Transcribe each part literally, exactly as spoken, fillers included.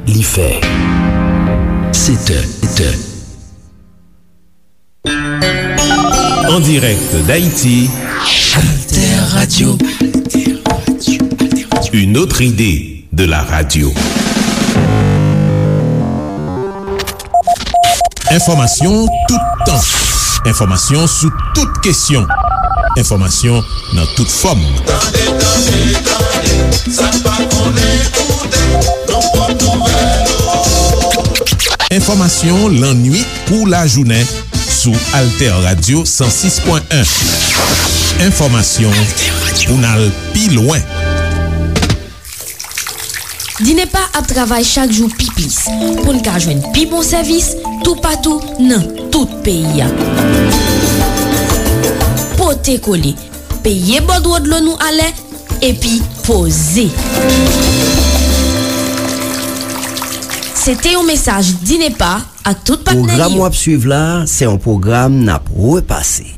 Li fè sèt è, sèt è. En direct d'Haïti, Alter Radio. Une autre idée de la radio. Enfòmasyon tout tan. Enfòmasyon sou tout kesyon. Enfòmasyon nan tout fòm. Tande, tande, tande, sa n pa konnen koute, nan pòt nouvèl ou. Enfòmasyon lannuit kou lajounen sou Alter Radio san sis pwen en. Enfòmasyon pou n al pi lwen. Dinepa ap travay chak jou pi plis pou n ka jwenn pi bon sèvis toupatou nan tout peyi a. Pote kole, peye bòdwo dlo nou alè, epi poze. Se te yon mesaj Dinepa ak tout patnè li yo. Pwogram w ap swiv la, se yon pwogram n ap repase.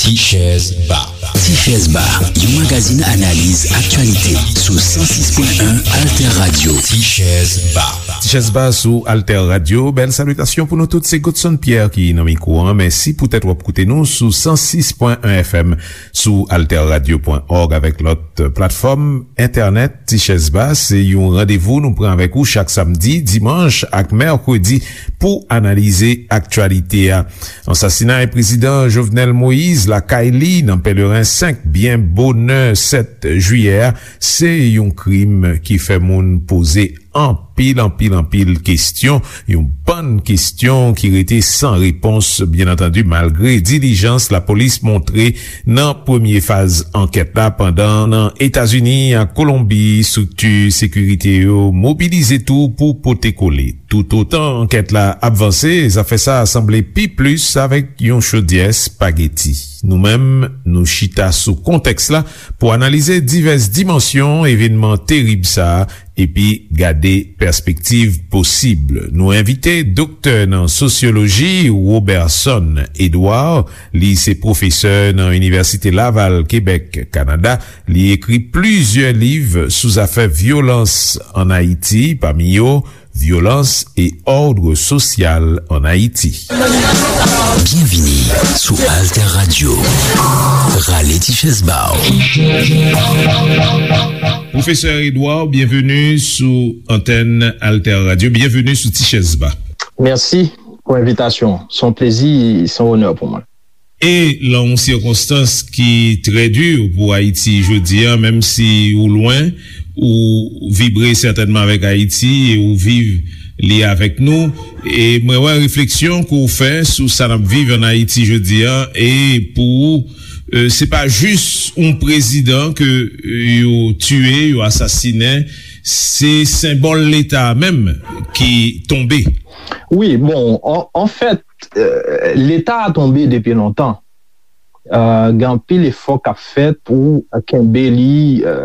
Tichèz Ba. Tichèz Ba, yon magazin analiz aktyalite sou san sis pwen en Alter Radio. Tichèz Ba. Tichèz Ba sou Alter Radio. Bèl salitasyon pou nou tout. Se Godson Pierre ki nan mikwo an. Mèsi poutèt w ap koute nou sou san sis pwen en F M, sou alter radio pwen òg avèk lòt platfòm entènèt. Tichèz Ba se yon randevou nou pran avèk ou chak samdi, dimanch ak mèkredi pou analize aktyalite a. Ansasinay prezidan Jovenel Moïse lakay li nan Pèleren senk byen bonè sèt jiyè a, se yon krim ki fè moun poze anpil, anpil, anpil kesyon, yon bann kesyon ki rete san repons, byen antandi, malgre dilijans lapolis montre nan premye faz ankèt la, pandan nan Etazini ak Kolonbi, estrikti sekirite yo mobilize tou pou pote kole. Toutotan ankèt la ap vanse, zafè sa a sanble pi plis avèk yon chodyè espageti. Nou menm, nou chita sou kontèks la pou analize divès dimansyon evènman terib sa a epi gade pèspektiv posib. Nou envite doktè nan sosyoloji Roberson Edouard, li se pwofesè nan Inivèsite Laval, Kebèk, Kanada. Li ekri plizyè liv sou zafè vyolans ann Ayiti, pami yo Violence et ordre social en Haïti. Byenvini sou Alter Radio. Rale ti chèz ba w. Pwofesè Edouard, byenveni sou antèn Alter Radio. Byenveni sou Ti Chèz Ba. Mèsi pou envitasyon. Se yon plezi, se yon onè pou mwen. E lan yon sikonstans ki trè di pou Ayiti jodi a, menm si ou lwen, ou vibre sètènman avèk Ayiti e ou viv li avèk nou. E mwen wè refleksyon ke w fè sou sa n ap viv ann Ayiti jodi a, e pou ou, e, se pa jis yon prezidan ke, e, yo tiye, yo asasinen, se senbòl Leta a menm ki tonbe. Wi, bon, an, anfèt, e, Leta a tonbe depi lontan. E, gen anpil efò k ap fèt pou kenbe li, e,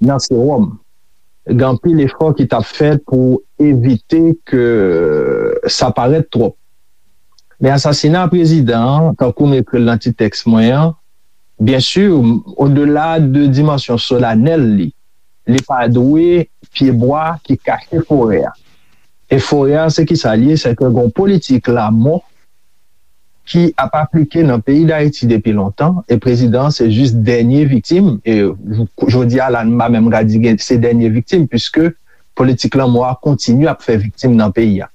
nan sewòm. Gen anpil efò ki t ap fèt pou evite ke sa parèt twòp. Men asasina prezidan an, tankou m ekri l nan ti tèks mwen an, byen si, odela de dimansyon solanèl li, li pa dwe pyebwa ki kache forè a. E forè a, se ki sa l ye? Se ke gen yon politik lanmò ki ap aplike nan peyi Dayiti depi lontan, e prezidan an se jis dènye viktim, e jodi a la, m pa menm ka di gen, se dènye viktim, piske politik lanmò a kontinye ap fè viktim nan peyi a.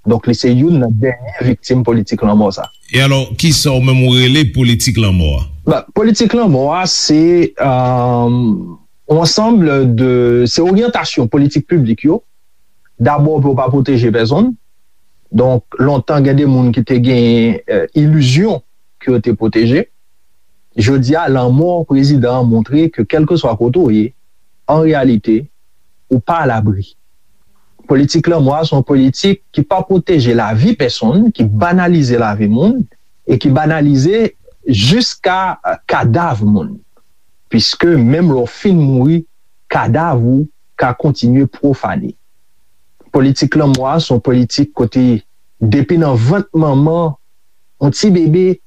Donk, li se youn nan dènye viktim politik lanmò sa. E alò, kisa w menm ou rele politik lanmò a? Ba, politik lanmò a, se, e, yon ansanm de, se oryantasyon politik piblik yo. Dabò, pou yo pa pwoteje pèsonn. Donk, lontan, gen de moun ki te gen, e, ilizyon ke yo te pwoteje. Jodi a, lanmò prezidan an montre ke kèlkeswa kote w ye, an reyalite, ou pa alabri. Politik lanmò a se yon politik ki pa pwoteje lavi pèsonn, ki banalize lavi moun, e ki banalize jiska, e, kadav moun. Piske menm lè w fin mouri, kadav ou ka kontinye pwofane. Politik lanmò a se yon politik kote, depi nan vant manman, yon ti bebe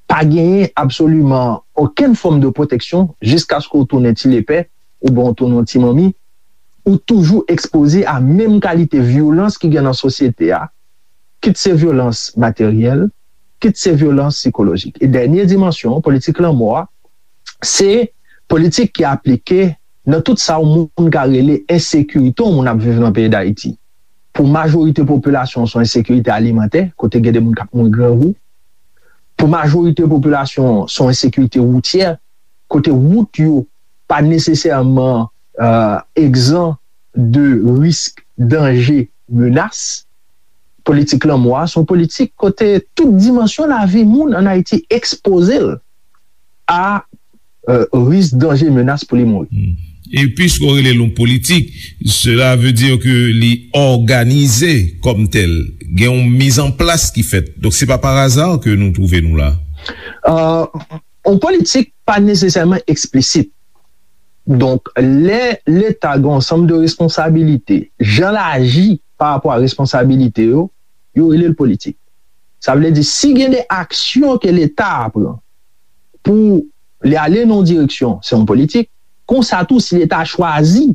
pa genyen absoliman okenn fòm de pwoteksyon jiskaske w tounen ti lepè oubyen w tounen yon ti manmi, ou toujou ekspoze a menm kalite vyolans ki gen nan sosyete a, kit se vyolans materyèl, kit se vyolans sikolojik. E dènye dimansyon politik lanmò a, se politik ki aplike nan tout sa yon moun ka rele ensekirite yon moun ap viv nan peyi Dayiti. Pou majorite popilasyon, se yon ensekirite alimantè, kote gen de moun k ap mouri grangou. Pou majorite popilasyon, se yon ensekirite woutyè, kote wout yo pa nesesèman egzan de risk, danje, menas. Politik lanmò a se yon politik kote tout dimansyon lavi moun ann Ayiti ekspoze l a risk, danje, menas pou li mouri. E piske w rele l yon politik, cela veut dire que li òganize kòm tèl. Gen yon mizanplas ki fèt. Donk, se pa par hasard ke nou twouve nou la. Yon politik pa nesesèman eksplisit. Donk, lè Leta gen yon ansanm de responsabilite, jan l aji pa rapò a responsabilite yo, yo rele l politik. Sa vle di, si gen de aksyon ke Leta a pran pou li ale nan yon direksyon, se yon politik. Konsa tou, si Leta a chwazi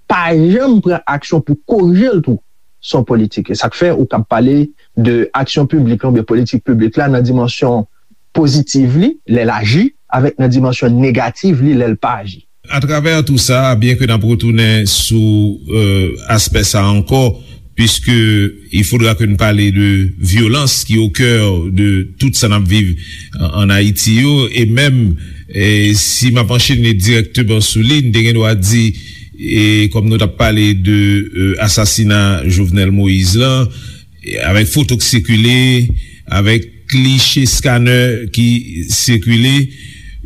pa janm pran aksyon pou korije l tou, se yon politik. E sa k fè ou kab pale de aksyon piblik la oubyen politik piblik la nan dimansyon pozitiv li, lè l aji, avèk nan dimansyon negativ li, lè l pa aji. Atravè tou sa, byen ke n ap retounen sou aspè sa ankò, puisque il faudra que n pale de vyolans ki au cœur de tout sa n ap viv an Ayiti yo, e menm si m ap anchene dirèkteman sou li, n te gen dwa di, e kòm nou t ap pale de asasina Jovenel Moïse lan, avèk foto k sikile, avèk kliche scanner ki sikile,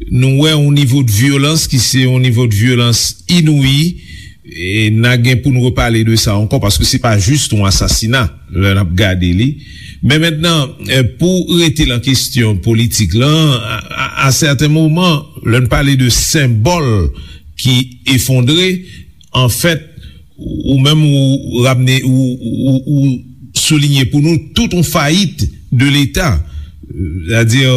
nou wè yon nivo de vyolans ki se yon nivo de vyolans inouyi. E n a gen pou n repale de sa ankò, paske se pa jis yon asasina lè n ap gade li. Men mentnan, pou rete lan kesyon politik lan, a sèten moman, lè n pale de senbòl ki efondre, anfèt, ou menm ou ramne, ou soulinye pou nou tout yon fayit de Leta, c'est-à-dire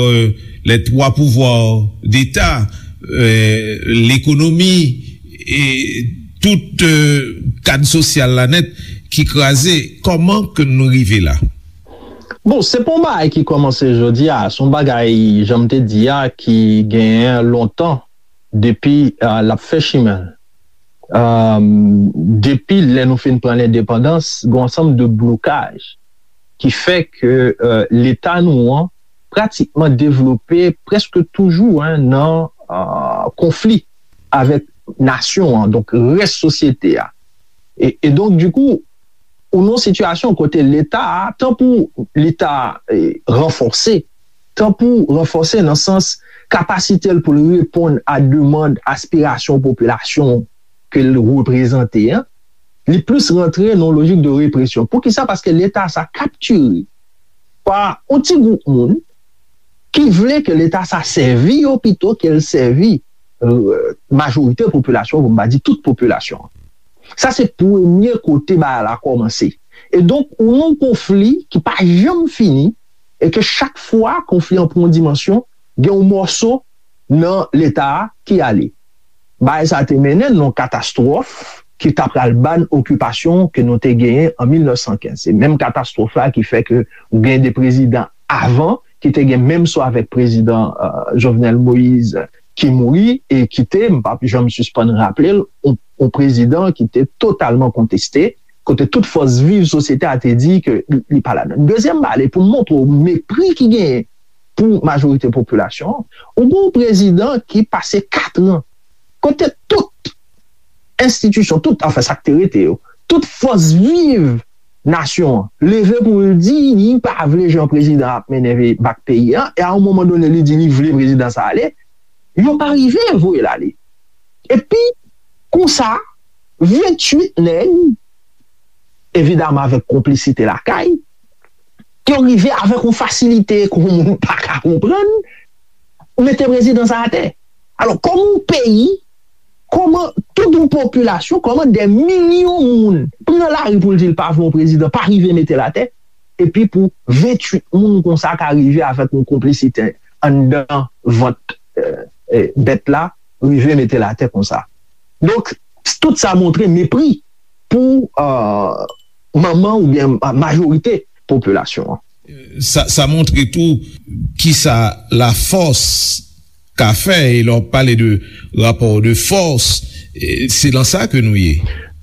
les trois pouvoirs d'État, l'économie, e tout kad sosyal la nèt ki kraze. Kòman ke nou rive la? Bon, se pa yon bagay ki kòmanse jodi a, se yon bagay, jan m te di a, ki genyen lontan, depi l ap fè chimen l. Depi lè nou fin pran lendepandans, gen yon ansanm de blokaj ki fè ke Leta nou an pratikman devlope prèske toujou nan konfli avèk nasyon an, donk rès sosyete a. E donk, dikou, ou nan yon sitiyasyon kote Leta a, tan pou Leta ranfòse, tan pou ranfòse nan sans kapasite l pou l reponn a demann, aspirasyon popilasyon ke l reprezante an, li plis rantre nan yon lojik de represyon. Poukisa? Paske Leta sa kaptire pa yon ti gwoup moun ki vle ke Leta sa sèvi yo pito ke l sèvi majorite popilasyon, pou m pa di tout popilasyon. Sa se premye kote bagay la kòmanse. E donk, ou nan yon konfli ki pa janm fini, e ke chak fwa konfli an pran yon dimansyon, gen yon mòso nan Leta a ki ale. Bagay sa te mennen nan yon katastwòf ki ta pral ban okipasyon ke nou te genyen an mil nèf san kenz. Se menm katastwòf la ki fè ke ou gen de prezidan avan ki te gen menm sò avèk prezidan Jovenel Moïse ki mouri e ki te, m p ap janm sispann raple l, yon prezidan ki te totalman konteste, kote tout fòs viv sosyete a te di ke li pa ladan. Dezyèm bagay, pou m montre w mepri ki genyen pou majorite popilasyon an, ou gen yon prezidan ki pase kat an kote tout enstitisyon, tout, anfen, sa k te rete yo, tout fòs viv nasyon an leve pou l di li pa vle jan prezidan ap mennen bak peyi a, e a yon moman done li di li vle prezidan sa ale, yo pa rive voye l ale. Epi, konsa, venntuit nèg, evidaman avèk konplisite lakay, yo rive avèk yon fasilite ke yon moun pa ka konprann, mete prezidan sa atè. Alò, kòman yon peyi, kòman tout yon popilasyon, kòman dè milyon moun pran lari pou l di l pa vle yon prezidan, pa rive mete l atè, epi pou venntuit moun konsa ka rive avèk yon konplisite anndan vant eh, eh, bèt la rive mete l atè konsa. Donk, tout sa montre mepri pou, eh, manman oubyen ma-, majorite popilasyon an. Sa, sa montre tou kisa lafòs ka fè, e lè w pale de rapò de fòs, eh, se nan sa ke nou ye.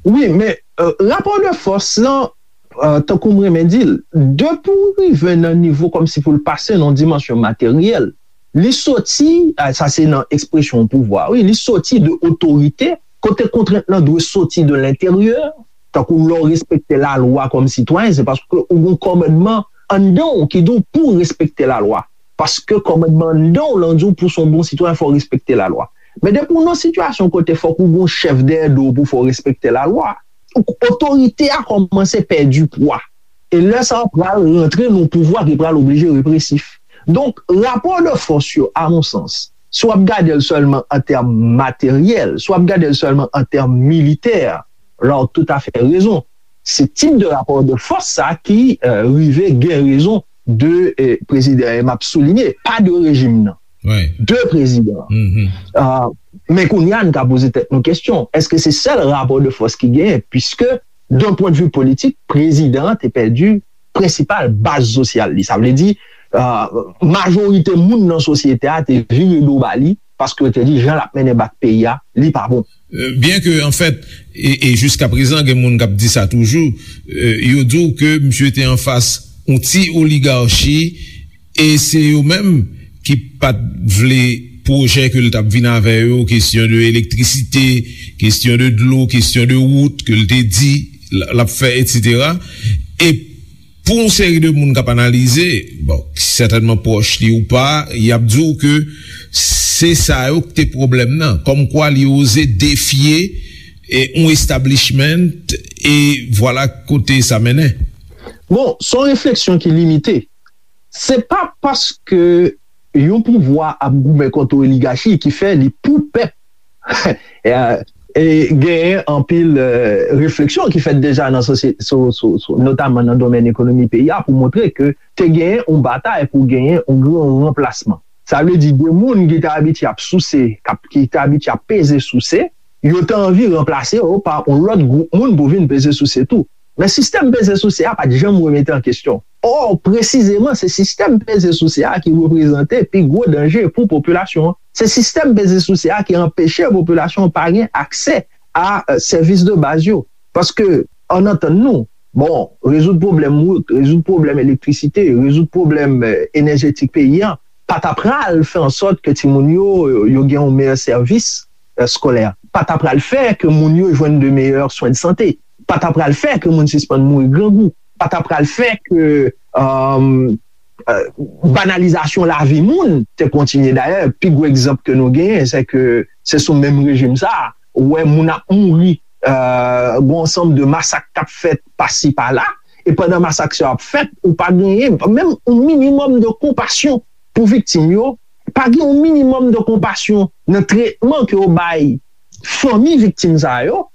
Wi, men, eh, rapò de fòs lan, eh, tankou m renmen di l, depi w rive nan nivo kòmsi pou l pase nan dimansyon materyèl, li soti, eh, sa se nan ekspresyon pouvwa, wi, li soti de otorite, kote kontrent lan dwe soti de lenteryè, tankou lè w respekte lalwa kòm sitwayen, se paske ou gen kòmandman anndan w ki di w pou w respekte lalwa. Paske kòmandman anndan w lan di w pou w se yon bon sitwayen, fò w respekte lalwa. Men depi w nan sitiyasyon kote fòk ou gen yon chèf dèyè do w pou fè w respekte lalwa, otorite a kòmanse pèdi pwa. E lè sa a pral rantre nan yon pouvwa ki pral oblije represif. Donk, rapò de fòs yo, a mon sans, si w ap gade l sèlman an tèm materyèl, si w ap gade l sèlman an tèm militè, la w toutafè rezon. Se tip de rapò de fòs sa ki, eh, rive gen rezon de, eh, prezidan, e m ap soulinye, pa de rejim nan. De prezidan. Ah, men kounye a, n ka poze tèt nou kesyon, èske se sèl rapò de fòs ki genyen? Piske, d'un pwen de vi politik, prezidan an te pèdi prensipal baz sosyal li. Sa vle di, ah, majorite moun nan sosyete a te vire do ba li, paske yo te di jan l ap mennen bak peyi a, li pa bon. Eh, byen ke, anfèt, e, e jiska prezan, gen moun k ap di sa toujou, eh, yo di w ke misye te anfas yon ti oligachi, e se yo menm ki pa t vle pwojè ke l t ap vin avè yo, kesyon de elektrisite, kesyon de dlo, kesyon de wout ke l te di l, l ap fè, etsetera. E pou yon seri de moun k ap analize, bon, ki sètènman pwòch li ou pa, y ap di w ke se sa yo ki te pwoblèm nan. Kòmkwa li oze defye, e, yon establishment, e vwala kote sa mennen. Bon, se yon refleksyon ki limite. Se pa paske yon pouvwa ap goumen kont yon oligachi ki fè li pou pèp. E, e genyen anpil, eh, refleksyon ki fèt deja nan sosye-, so-, so-, so-, notaman nan domèn ekonomi peyi a pou montre ke te genyen yon batay pou genyen yon gran ranplasman. Sa vle di de moun ki te abitye ap souse, k ap, ki te abitye ap peze souse, yo te anvi ranplase yo pa yon lòt gwoup moun pou vin peze souse tou. Men sistèm peze souse a pa t janm remete an kesyon. Ò, presizeman, se sistèm peze souse a ki reprezante pi gwo danje pou popilasyon an. Se sistèm peze souse a ki anpeche popilasyon an pa gen aksè a, eh, sèvis de baz yo. Paske, ann antann nou, bon, rezoud pwoblèm wout, rezoud pwoblèm elektrisite, rezoud pwoblèm, eh, enèjetik peyi a, pa ta pral fè an sòt ke timoun yo, yo gen yon meyè sèvis, eh, eskolè. Pa ta pral fè ke moun yo jwenn de meyè swen de sante. Pa ta pral fè ke moun sispann mouri grangou. Pa ta pral fè ke, um, eh, banalizasyon lavi moun te kontinye. Dayè, pi gwo egzanp ke nou genyen, se ke se sou menm rejim sa a, ou wè moun ap mouri, eh, gen yon ansanm de masak k ap fèt pasi pala, e pandan masak sa yo ap fèt, ou pa genyen menm yon minimòm de konpasyon pou viktim yo, pa gen yon minimòm de konpasyon nan tretman ke yo bay fanmi viktim sa yo,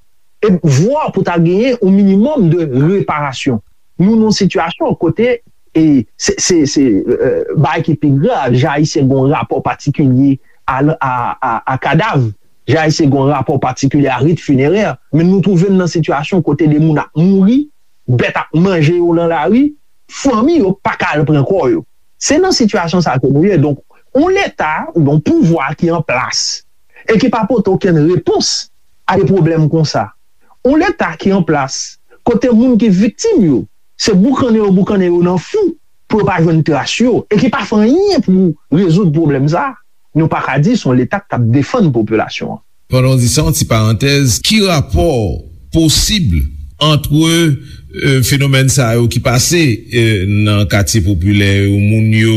e vwa pou ta genyen yon minimòm de reparasyon. Nou nan yon sitiyasyon kote, e se, se, se, eh, bagay ki pi grav, jan Ayisyen gen yon rapò patikilye a, a, a, a kadav, jan Ayisyen gen yon rapò patikilye a rit finerè, men nou twouve n nan sitiyasyon kote de moun ap mouri, bèt ap manje yo nan lari, fanmi yo pa ka al pran kò yo. Se nan sitiyasyon sa ke nou ye. Donk, yon leta, oubyen yon pouvwa ki an plas, e ki pa pote okenn repons a de pwoblèm konsa. Yon leta ki an plas, kote moun ki viktim yo, se boukannen yo boukannen yo nan fou pou yo pa jwenn tras yo, e ki pa fè anyen pou rezoud pwoblèm sa, nou pa ka di se yon leta k ap defann popilasyon an. Pandan w di sa, yon ti parantèz, ki rapò posib ant, eh, fenomèn sa yo ki pase, eh, nan katye popilè yo, moun yo,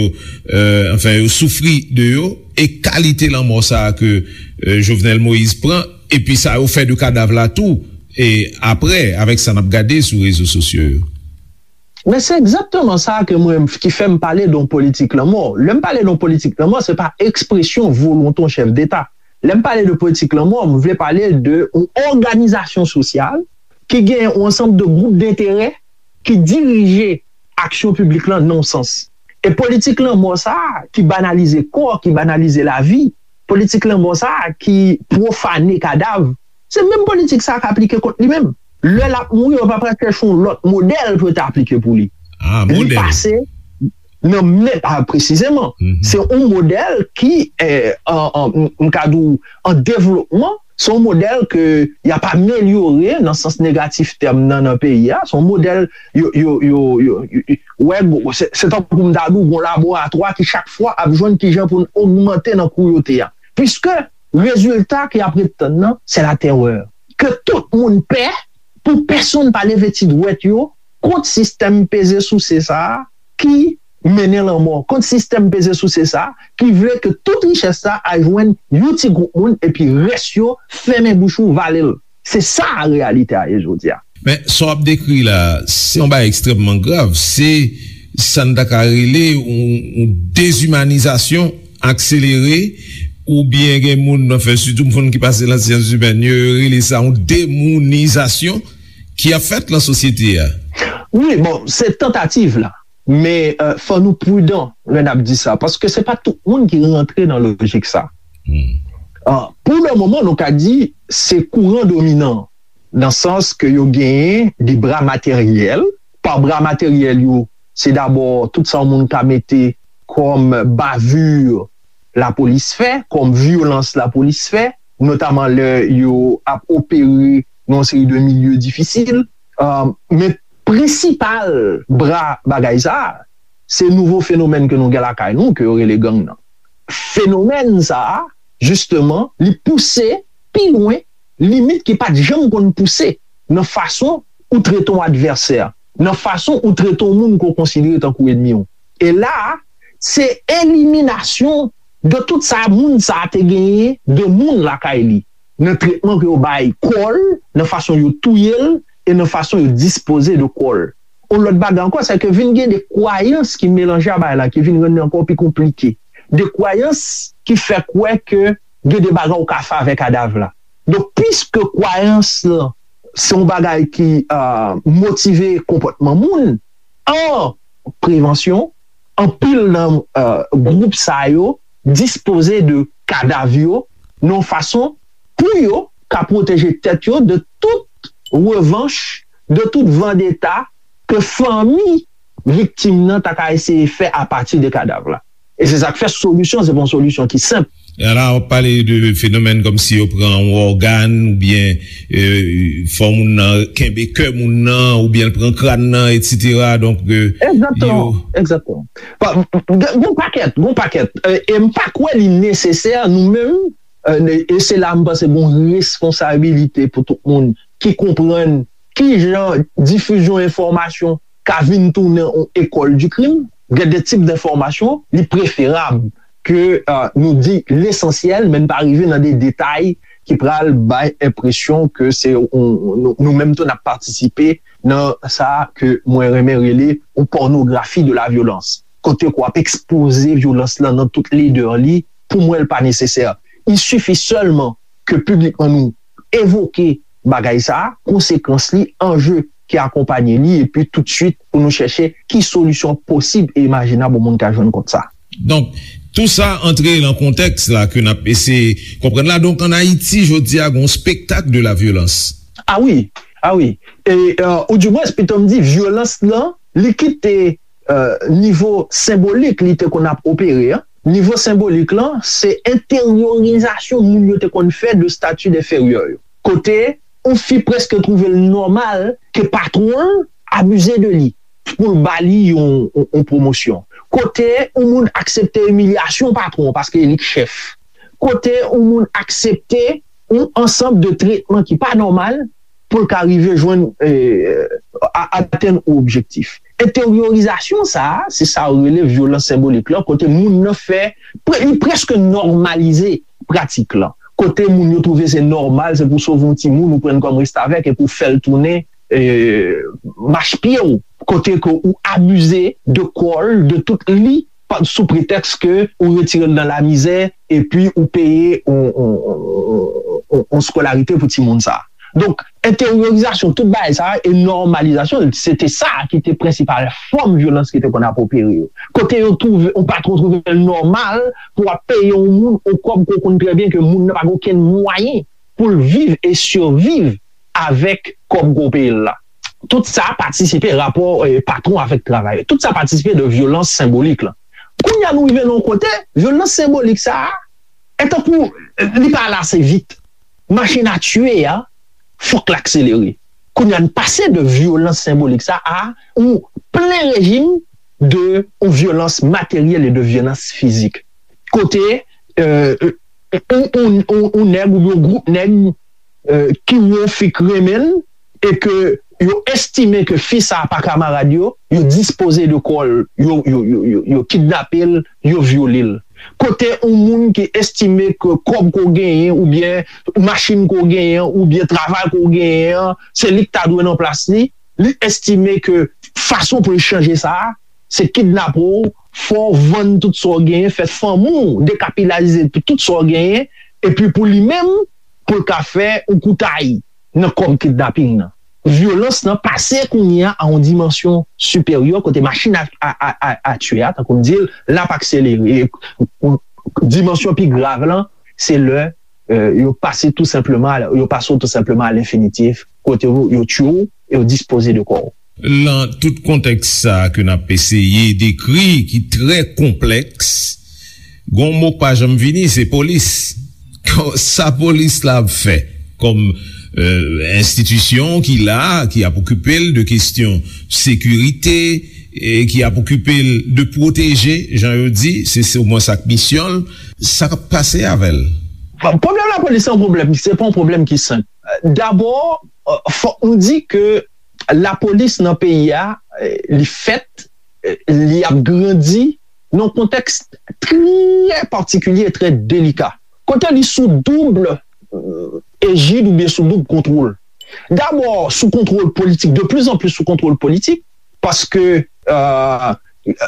eh, anfen, yo soufri de yo, e kalite lanmò sa a ke, eh, Jovenel Moïse pran, epi sa yo fè de kadav la tou, e apre, avèk sa n ap gade sou rezo sosyo yo? Men se egzakteman sa ke mwen, ki fè m pale de yon politik lanmò. Lè m pale de yon politik lanmò, se pa ekspresyon volonte yon chèf deta. Lè m pale de politik lanmò, m vle pale de yon òganizasyon sosyal ki gen yon ansanm de gwoup denterè ki dirije aksyon piblik lan nan yon sans. E politik lanmò sa a, ki banalize kò, ki banalize lavi, politik lanmò sa a ki pwofane kadav, se menm politik sa a k aplike kont li menm. Lè l ap mouri, yo pa pral chèche yon lòt modèl pou yo ta aplike pou li. Ah, li modèl. Pase nan menm, ah, presizeman, se yon modèl ki, eh, an, an, m, m ka di w, an devlopman, se yon modèl ke y ap amelyore nan sans negatif tèm nan, nan peyi a. Se yon modèl, yo, yo, yo, yo, yo, yo, wè, gwo, se, se tankou m ta di w, gon laboratwa ki chak fwa ap jwenn kijan pou n ogmante nan kwoyote a. Piske rezilta ke y ap ret tann nan, se latèrè. Ke tout moun pè, pou pèsonn pa leve ti dwèt yo kont sistèm peze souse sa a ki mennen lanmò, kont sistèm peze souse sa a ki vle ke tout richès sa a al jwenn yon ti gwoup moun epi rès yo fèmen bouch ou, vale l. Se sa reyalite a ye jodi a. Men, sa w ap dekri la, se yon bagay ekstrèmman grav. Se sa n ta ka rele yon, yon dezimanizasyon akselere, oubyen gen moun nan fè, sitou moun ki pase nan syans imèn yo, yo rele sa yon demounizasyon ki ap fèt nan sosyete a. Wi, bon, se tantativ la. Men, euh, fò nou pridan lè n ap di sa, paske se pa tout moun ki rantre nan lojik sa. Hmm. Euh, pou le moman, nou ka di se kouran dominan, nan sans ke yo genyen de bra materyèl. Pa bra materyèl yo, se dabò tout sa yon moun ka mete kòm bavure lapolis fè, kòm vyolans lapolis fè, notaman lè yo ap opere nan yon seri de milye difisil. Euh, men prensipal bra bagay sa a, se nouvo fenomèn ke nou gen lakay nou, ke yo rele gang nan. Fenomèn sa a, jisteman, li pouse pi lwen limit ki pa t janm konn pouse nan fason ou trete yon advèsè, nan fason ou trete yon moun ke w konsidere tankou ènmi w. E la a, se eliminasyon de tout sa moun sa a te genyen de moun lakay li, nan tretman ke yo bay kò l, nan fason yo touye l, e nan fason yo dispoze de kò l. Yon lòt bagay ankò, se ke vin gen de kwayans ki melanje a bagay la, ki vin rann li ankò pi konplike. De kwayans ki fè kwè ke gen de bagay ou ka fè avèk kadav la. Donk, piske kwayans lan se yon bagay ki, euh, motive konpòtman moun, an prevansyon, anpil nan, euh, gwoup sa yo dispoze de kadav yo nan yon fason pou yo ka pwoteje tèt yo de tout revanch, de tout vandeta ke fanmi viktim nan ta ka eseye fè apati de kadav la. E se sa k fè solisyon, se pa yon solisyon ki senp. E la, w ap pale de fenomèn kòmsi yo pran yon ògàn, oubyen, euh, fè moun nan kenbe kè moun nan, oubyen l pran kràn nan, etsetera. Donk, euh, egzakteman, yo egzakteman. Pa, gen, gen pakèt, gen pakèt. Euh, e m pa kwè li nesesè, nou menm, euh, e se la m panse gen yon responsabilite pou tout moun ki konprann ki jan difizyon enfòmasyon ka vin tounen yon école du crime. Gen de tip de fòmasyon, li preferab ke, euh, nou di lesansyèl, men n pa rive nan de detay ki pral bay enpresyon ke se yon, nou, nou menm tou n ap patisipe nan sa ke mwen renmen rele yon pònografi de la vyolans. Kote ke w ap ekspoze vyolans lan nan tout ledè li, pou mwen, l pa nesesè. Il suffit seulement ke piblikman nou evoke bagay sa a, konsekans li, anje ki akonpanye li, epi toutswit pou nou chèche ki solisyon posib e imajinab yon moun ka jwenn kont sa. Donk, tou sa antre nan kontèks la ke n ap eseye konprann la. Donk, ann Ayiti, jodi a, gen yon spektak de la vyolans. A wi, a wi. E, euh, oudimwens, pito m di, vyolans lan, li kite, euh, nivo senbolik li te konn ap opere an. Nivo senbolik lan, se enteryorizasyon moun yo te konn fè de stati denferyè yo. Kote yon fi prèske twouve l nòmal ke patwon l abize de li pou l ba li yon, yon, yon pwomosyon. Kote yon moun aksepte imilyasyon patwon paske e li k chèf. Kote yon moun aksepte yon ansanm de tretman ki pa nòmal pou l ka rive jwenn, eh, a-, atenn yon objektif. Enteryorizasyon sa a, se sa yo rele vyolans senbolik lan, kote moun nan fè, pre-, li prèske nòmalize pratik lan. Kote moun yo twouve se nòmal, se pou sove yon timoun ou pran l kòm restavèk epi w fè l tounen, eh, machpye w. Kote ke ou abize de kò l, de tout li, pa, sou pretèks ke ou retire l nan lamizè, epi ou peye yon, yon, yon, yon, yon skolarite pou timoun sa a. Donk, enteryorizasyon tout bagay sa a e nòmalizasyon l, se te sa ki te prensipal fòm vyolans ki te konn ap opere yo. Kote yo twouve, yon patwon twouve l nòmal pou w ap peye yon moun yon kòb ke w konn trè byen ke moun nan pa gen okenn mwayen pou l viv e siviv avèk kòb ke w peye l la. Tout sa patisipe rapò eh, patwon avèk travayè. Tout sa patisipe de vyolans senbolik la. Kounye a nou rive nan yon kote, vyolans senbolik sa a, e tankou eh, li pa ale ase vit. Machin a tiye a, fòk l akselere. Kounye a n pase de vyolans senbolik sa a yon plen rejim de yon vyolans materyèl e de vyolans fizik. Kote eh, yon, yon, yon, yon nèg oubyen yon gwoup nèg eh, ki wè yon fi k renmen l e ke yo estime ke fi sa a pa kamarad yo, yo dispoze de kò l, yo, yo, yo, yo, yo kidnape l, yo vyole l. Kote yon moun ki estime ke kòb ke w genyen oubyen machin ke w genyen oubyen travay ke w genyen an, se li k ta dwe nan plas li, li estime ke fason pou l chanje sa a, se kidnape w, fè w vann tout sa w genyen, fè fanmi w dekapitalize pou tout sa w genyen, epi pou li menm, pou l ka fè yon koutay nan kòb kidnaping nan. Vyolans nan pase kounye a a yon dimansyon siperyè kote machin a, a, a, a, a tiye a, tankou m di l, l ap akselere. E, dimansyon pi grav lan, se lè eh, yo pase tou senpleman, yo pase w tou senpleman a lenfinitif, kote yo, yo tiye w e yo dispoze de kò w. Lan tout kontèks sa a ke n ap eseye dekri, ki trè konplèks, gon mo k pa janm vini, se polis. Sa polis la ap fè kòm enstitisyon ki la, ki ap okipe l de kesyon sekirite, e ki ap okipe l de pwoteje, jan yo di, se se omwen sa k misyon l, sa k ap pase avè l? Pwoblèm lapolis se yon pwoblèm, se pa yon pwoblèm ki senp. Dabò, fòk nou di ke lapolis nan peyi a, li fèt, li ap grandi nan yon kontèks trè patikilye e trè delika. Kote li sou doub ejid oubyen sou doub kontwòl. Dabò, sou kontwòl politik, de plus en plus sou kontwòl politik, paske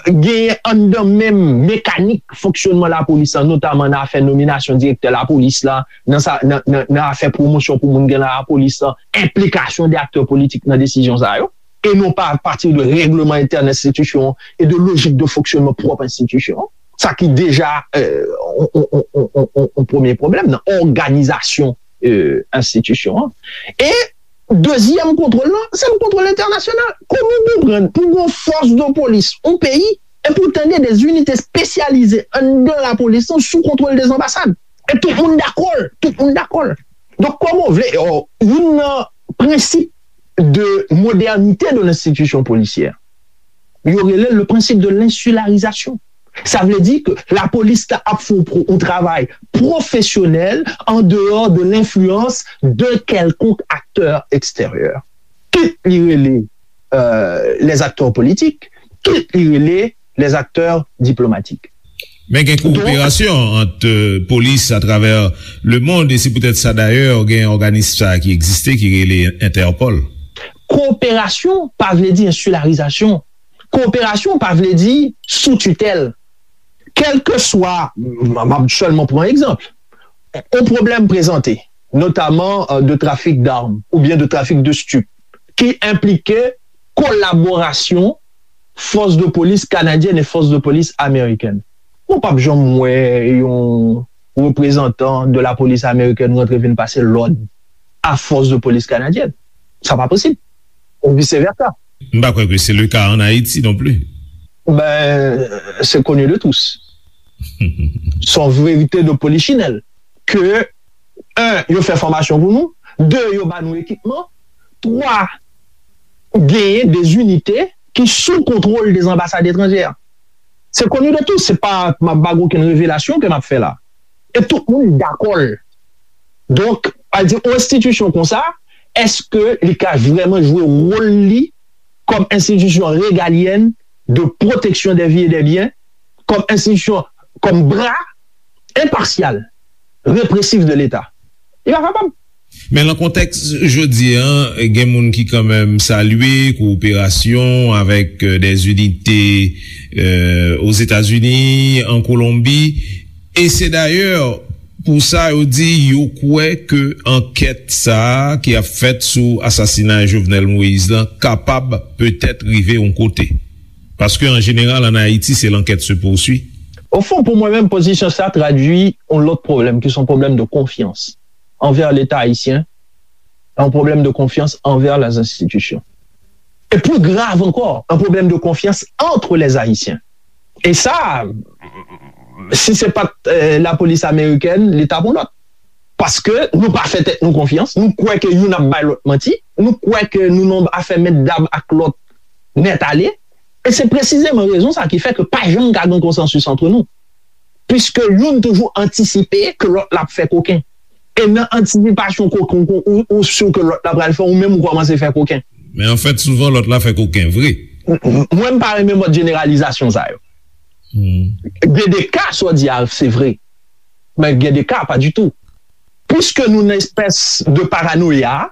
genyen anndan menm mekanik fonksyònman lapolis la, notaman nan afè nominasyon direktè lapolis la, nan sa, nan, nan, nan afè pwomosyon pou moun gen nan lapolis la, enplikasyon de aktè politik nan desizyon sa yo, e non pa apati de règleman entèn enstitisyon e de lojik de fonksyònman pwòp enstitisyon, sa ki deja yon premye pwoblèm nan òganizasyon enstitisyon an. E dezyèm kontwòl lan, se yon kontwòl entènasyonal. Kòman w konprann pou gon fòs de polis yon peyi, e pou tande de zinite espesyalize anndan lapolis lan sou kontwòl de anbasad? E tout moun dakò l, tout moun dakò l. Donk, kòman w vle, youn nan prensip de modernite de lenstitisyon polisyè, yo rele l le principe de l'insularisation. Sa vle di ke lapolis la ap fè yon travay pwofesyonèl an deyò de lenfliyans de kèlkonk aktè eksteryè. Kit li rele les acteurs politiques, kit li rele les acteurs diplomatiques. Men gen kowoperasyon ant polis atravè lemond, e se poutèt sa dayè gen òganis sa a ki egziste, ki rele Entèpòl. Kowoperasyon pa vle di ensilarizasyon. Kowoperasyon pa vle di sou titèl. Kèlkeswa, m ap sèlman pran egzanp, yon pwoblèm prezante, notaman de trafik dam oubyen de trafik de stup, ki enplike kolaborasyon fòs de polis kanadyèn e fòs de polis amerikèn. Ou p ap janm wè yon reprezantan de lapolis amerikèn rantre vin pase lòd a fòs de polis kanadyèn. Sa pa posib. Ou vice versa. M pa kwè ke se le ka an Ayiti non pli. Ben, c'est connu de tous. Se yon verite de polichinèl. Ke, un, yo fè fòmasyon pou nou, de, yo ba nou ekipman, twa, genyen de zinite ki sou kontwòl de anbasad etranjè. Se connu de tous, se pa, m ap ba okenn revelasyon ke m ap fè la. E tout moun dakò l. Donk, pa di, yon enstitisyon konsa, èske li ka vrèman jwe wòl li kòm enstitisyon regalyèn de pwoteksyon dè vi e dè byen, kòm enstitisyon, kòm bra enpasyal, represif de Leta? Li pa kapab. Men nan kontèks jodi a, gen moun ki kanmenm salye kowoperasyon avèk de zinite Ozetazini, an Kolonbi, e se dayè Pou sa, yo di yo kwè ke ankèt sa a ki ap fèt sou asasinay Jovenel Moïse lan kapab petèt rive yon kote. Paske, an jeneral, ann Ayiti, se l'enquête se poursuit. Au fond, pou mwen menm, pozisyon sa tradui yon lòt pwoblèm, ki se yon pwoblèm de konfyans anvè Leta ayisyen, yon pwoblèm de konfyans anvè les institutions. E pli grav ankò, yon pwoblèm de konfyans entre les Haïtiens. E sa, si se pa t lapolis amerikèn, li t ap yon lòt. Paske nou pa fè tèt nou konfyans, nou kwè ke youn ap bay lòt manti, nou kwè ke nou nan afè mèt dam ak lòt nèt ale. E se presizeman rezon sa ki fè ke pa janm ka gen konsansis antre nou. Piske youn toujou antisipe ke lòt la ap fè koken. E nan antisipasyon koken ou, ou si ke lòt la pral fè, ou menm ou kòmanse fè koken. Men anfèt, souvan lòt la fè koken vre. Mwen, m pa renmen mòd jeneralizasyon sa yo. Gen de ka, sa w di a, se vre. Men gen de ka, pa ditou. Piske nou nan espès de paranoya,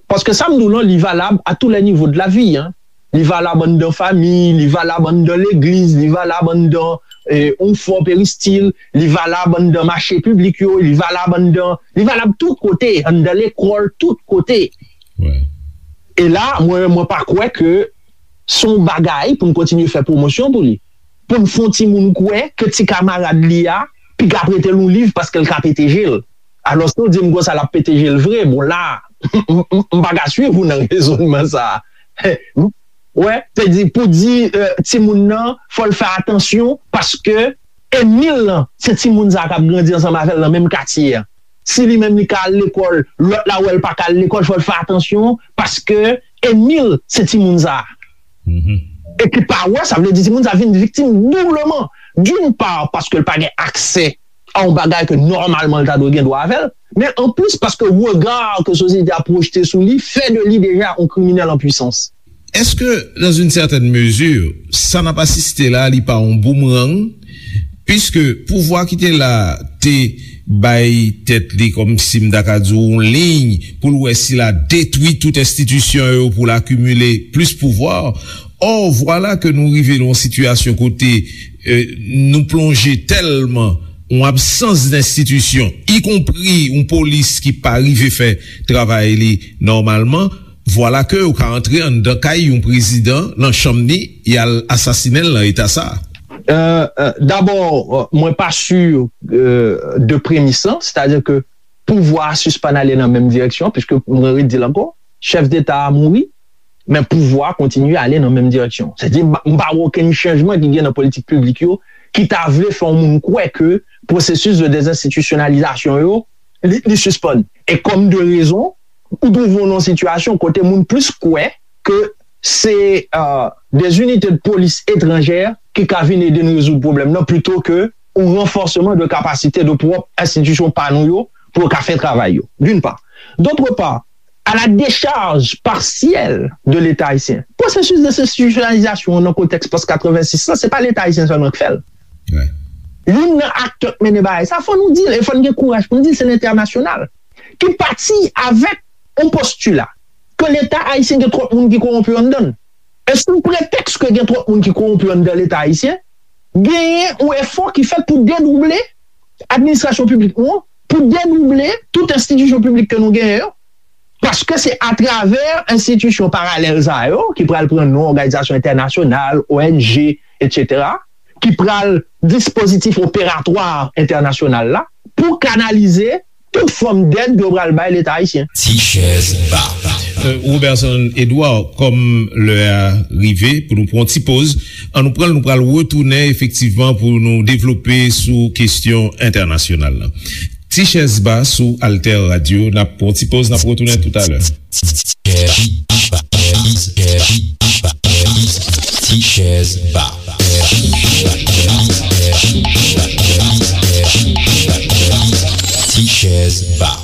paske sa m di w lan, li valab à tous les niveaux de la vie, hein. Li valab anndan fanmi, li valab anndan legliz, li valab anndan yon fò peristil, li valab anndan mache piblik yo, li valab anndan, li valab tout kote, anndan lekòl, tout kote. E la, mwen, mwen pa kwè ke se yon bagay pou n kontinye fè pwomosyon pou li. Pou n fè yon timoun kwè ke ti kamarad li a piga prete l yon liv paske l ka pete je l. Alòske w di m konsa l ap pete je l vre, bon la, m pa ka swiv ou nan rezònman sa a. Wè, se di, pou di timoun nan, fò l fè atansyon paske enmi l lan, se timoun sa a k ap grandi ansanm avè l nan menm katye a. Si li menm li ka al lekòl, lòt la wè l pa ka al lekòl, fò l fè atansyon paske enmi l se timoun sa a. E ki pa wè, sa vle di timoun sa a vin viktim doubleman. D'une part, paske l pa gen aksè a yon bagay ke nòmalman l ta dwe gen dwa avè l, men anplis paske rega ke sosyete a pwojte sou li fè de li deja yon kriminèl an pwisans. Est-ce que, dans une certaine mesure, sa n ap asiste la, li pa yon boumerang? Piske pouvwa ki te la te bay tèt li, kòmsi m ta ka di w, yon liy pou l wè si l a detwi tout enstitisyon yo pou l akimile plis pouvwa. Or, vwala ke nou rive nan yon sitiyasyon kote nou plonje tèlman yon absans denstitisyon, ikonpri yon polis ki pa rive fè travay li nòmalman, vwala ke ou ka antre anndan kay yon prezidan, nan chanm li, y al asasinen l nan eta sa a. Dabò, mwen pa si de premis lan, sètadi ke pouvwa a sispann ale nan menm direksyon, piske mwen redi l ankò, chèf deta a mouri, men pouvwa a kontinye ale nan menm direksyon. Sètadi, m pa wè okenn chanjman ki gen nan politik piblik yo ki ta vle fè yon moun kwè ke pwosesis de dezenstitisyonalizasyon yo, li, li sispann. E kòm de rezon, ou twouve w nan yon sitiyasyon kote moun plis kwè ke se des unités de police étrangères ki ka vin ede n rezoud pwoblèm nan, plito ke yon ranfòsman de kapasite de pwòp enstitisyon pa nou yo pou yo ka fè travay yo, d'une part. D'autre part, à la décharge partielle de Leta ayisyen. Pwosesis dezenstitisyonalizasyon an nan kontèks pòs katrevensis lan, se pa Leta ayisyen sèlman k fè l. Youn nan aktè k mennen bagay sa, fò nou di l, e fò n gen kouraj pou n di l, se lentènasyonal. Ki pati avèk yon postila ke Leta ayisyen gen twòp moun ki kowonpi anndan l. E sou pretèks ke gen twòp moun ki kowonpi anndan Leta ayisyen, genyen yon efò ki fèt pou dedouble administrasyon piblik nou an, pou dedouble tout enstitisyon piblik ke nou genyen yo, paske se atravè enstitisyon paralèl sa yo, ki pral pran non òganizasyon entènasyonal, O N G, etsetera, ki pral dispozitif operatwa entènasyonal la, pou kanalize tout fòm dèd yo pral bay Leta ayisyen. Ti chèz ba. Roberson Edouard, kòm lè a rive pou nou pran yon ti poz, ann nou pran l, nou pral retounen efektivman pou nou devlope sou kesyon entènasyonal la. Ti chèz ba sou Alter Radio, n ap pran yon ti poz, n ap retounen toutalè. Ti chèz ba. Ti chèz ba.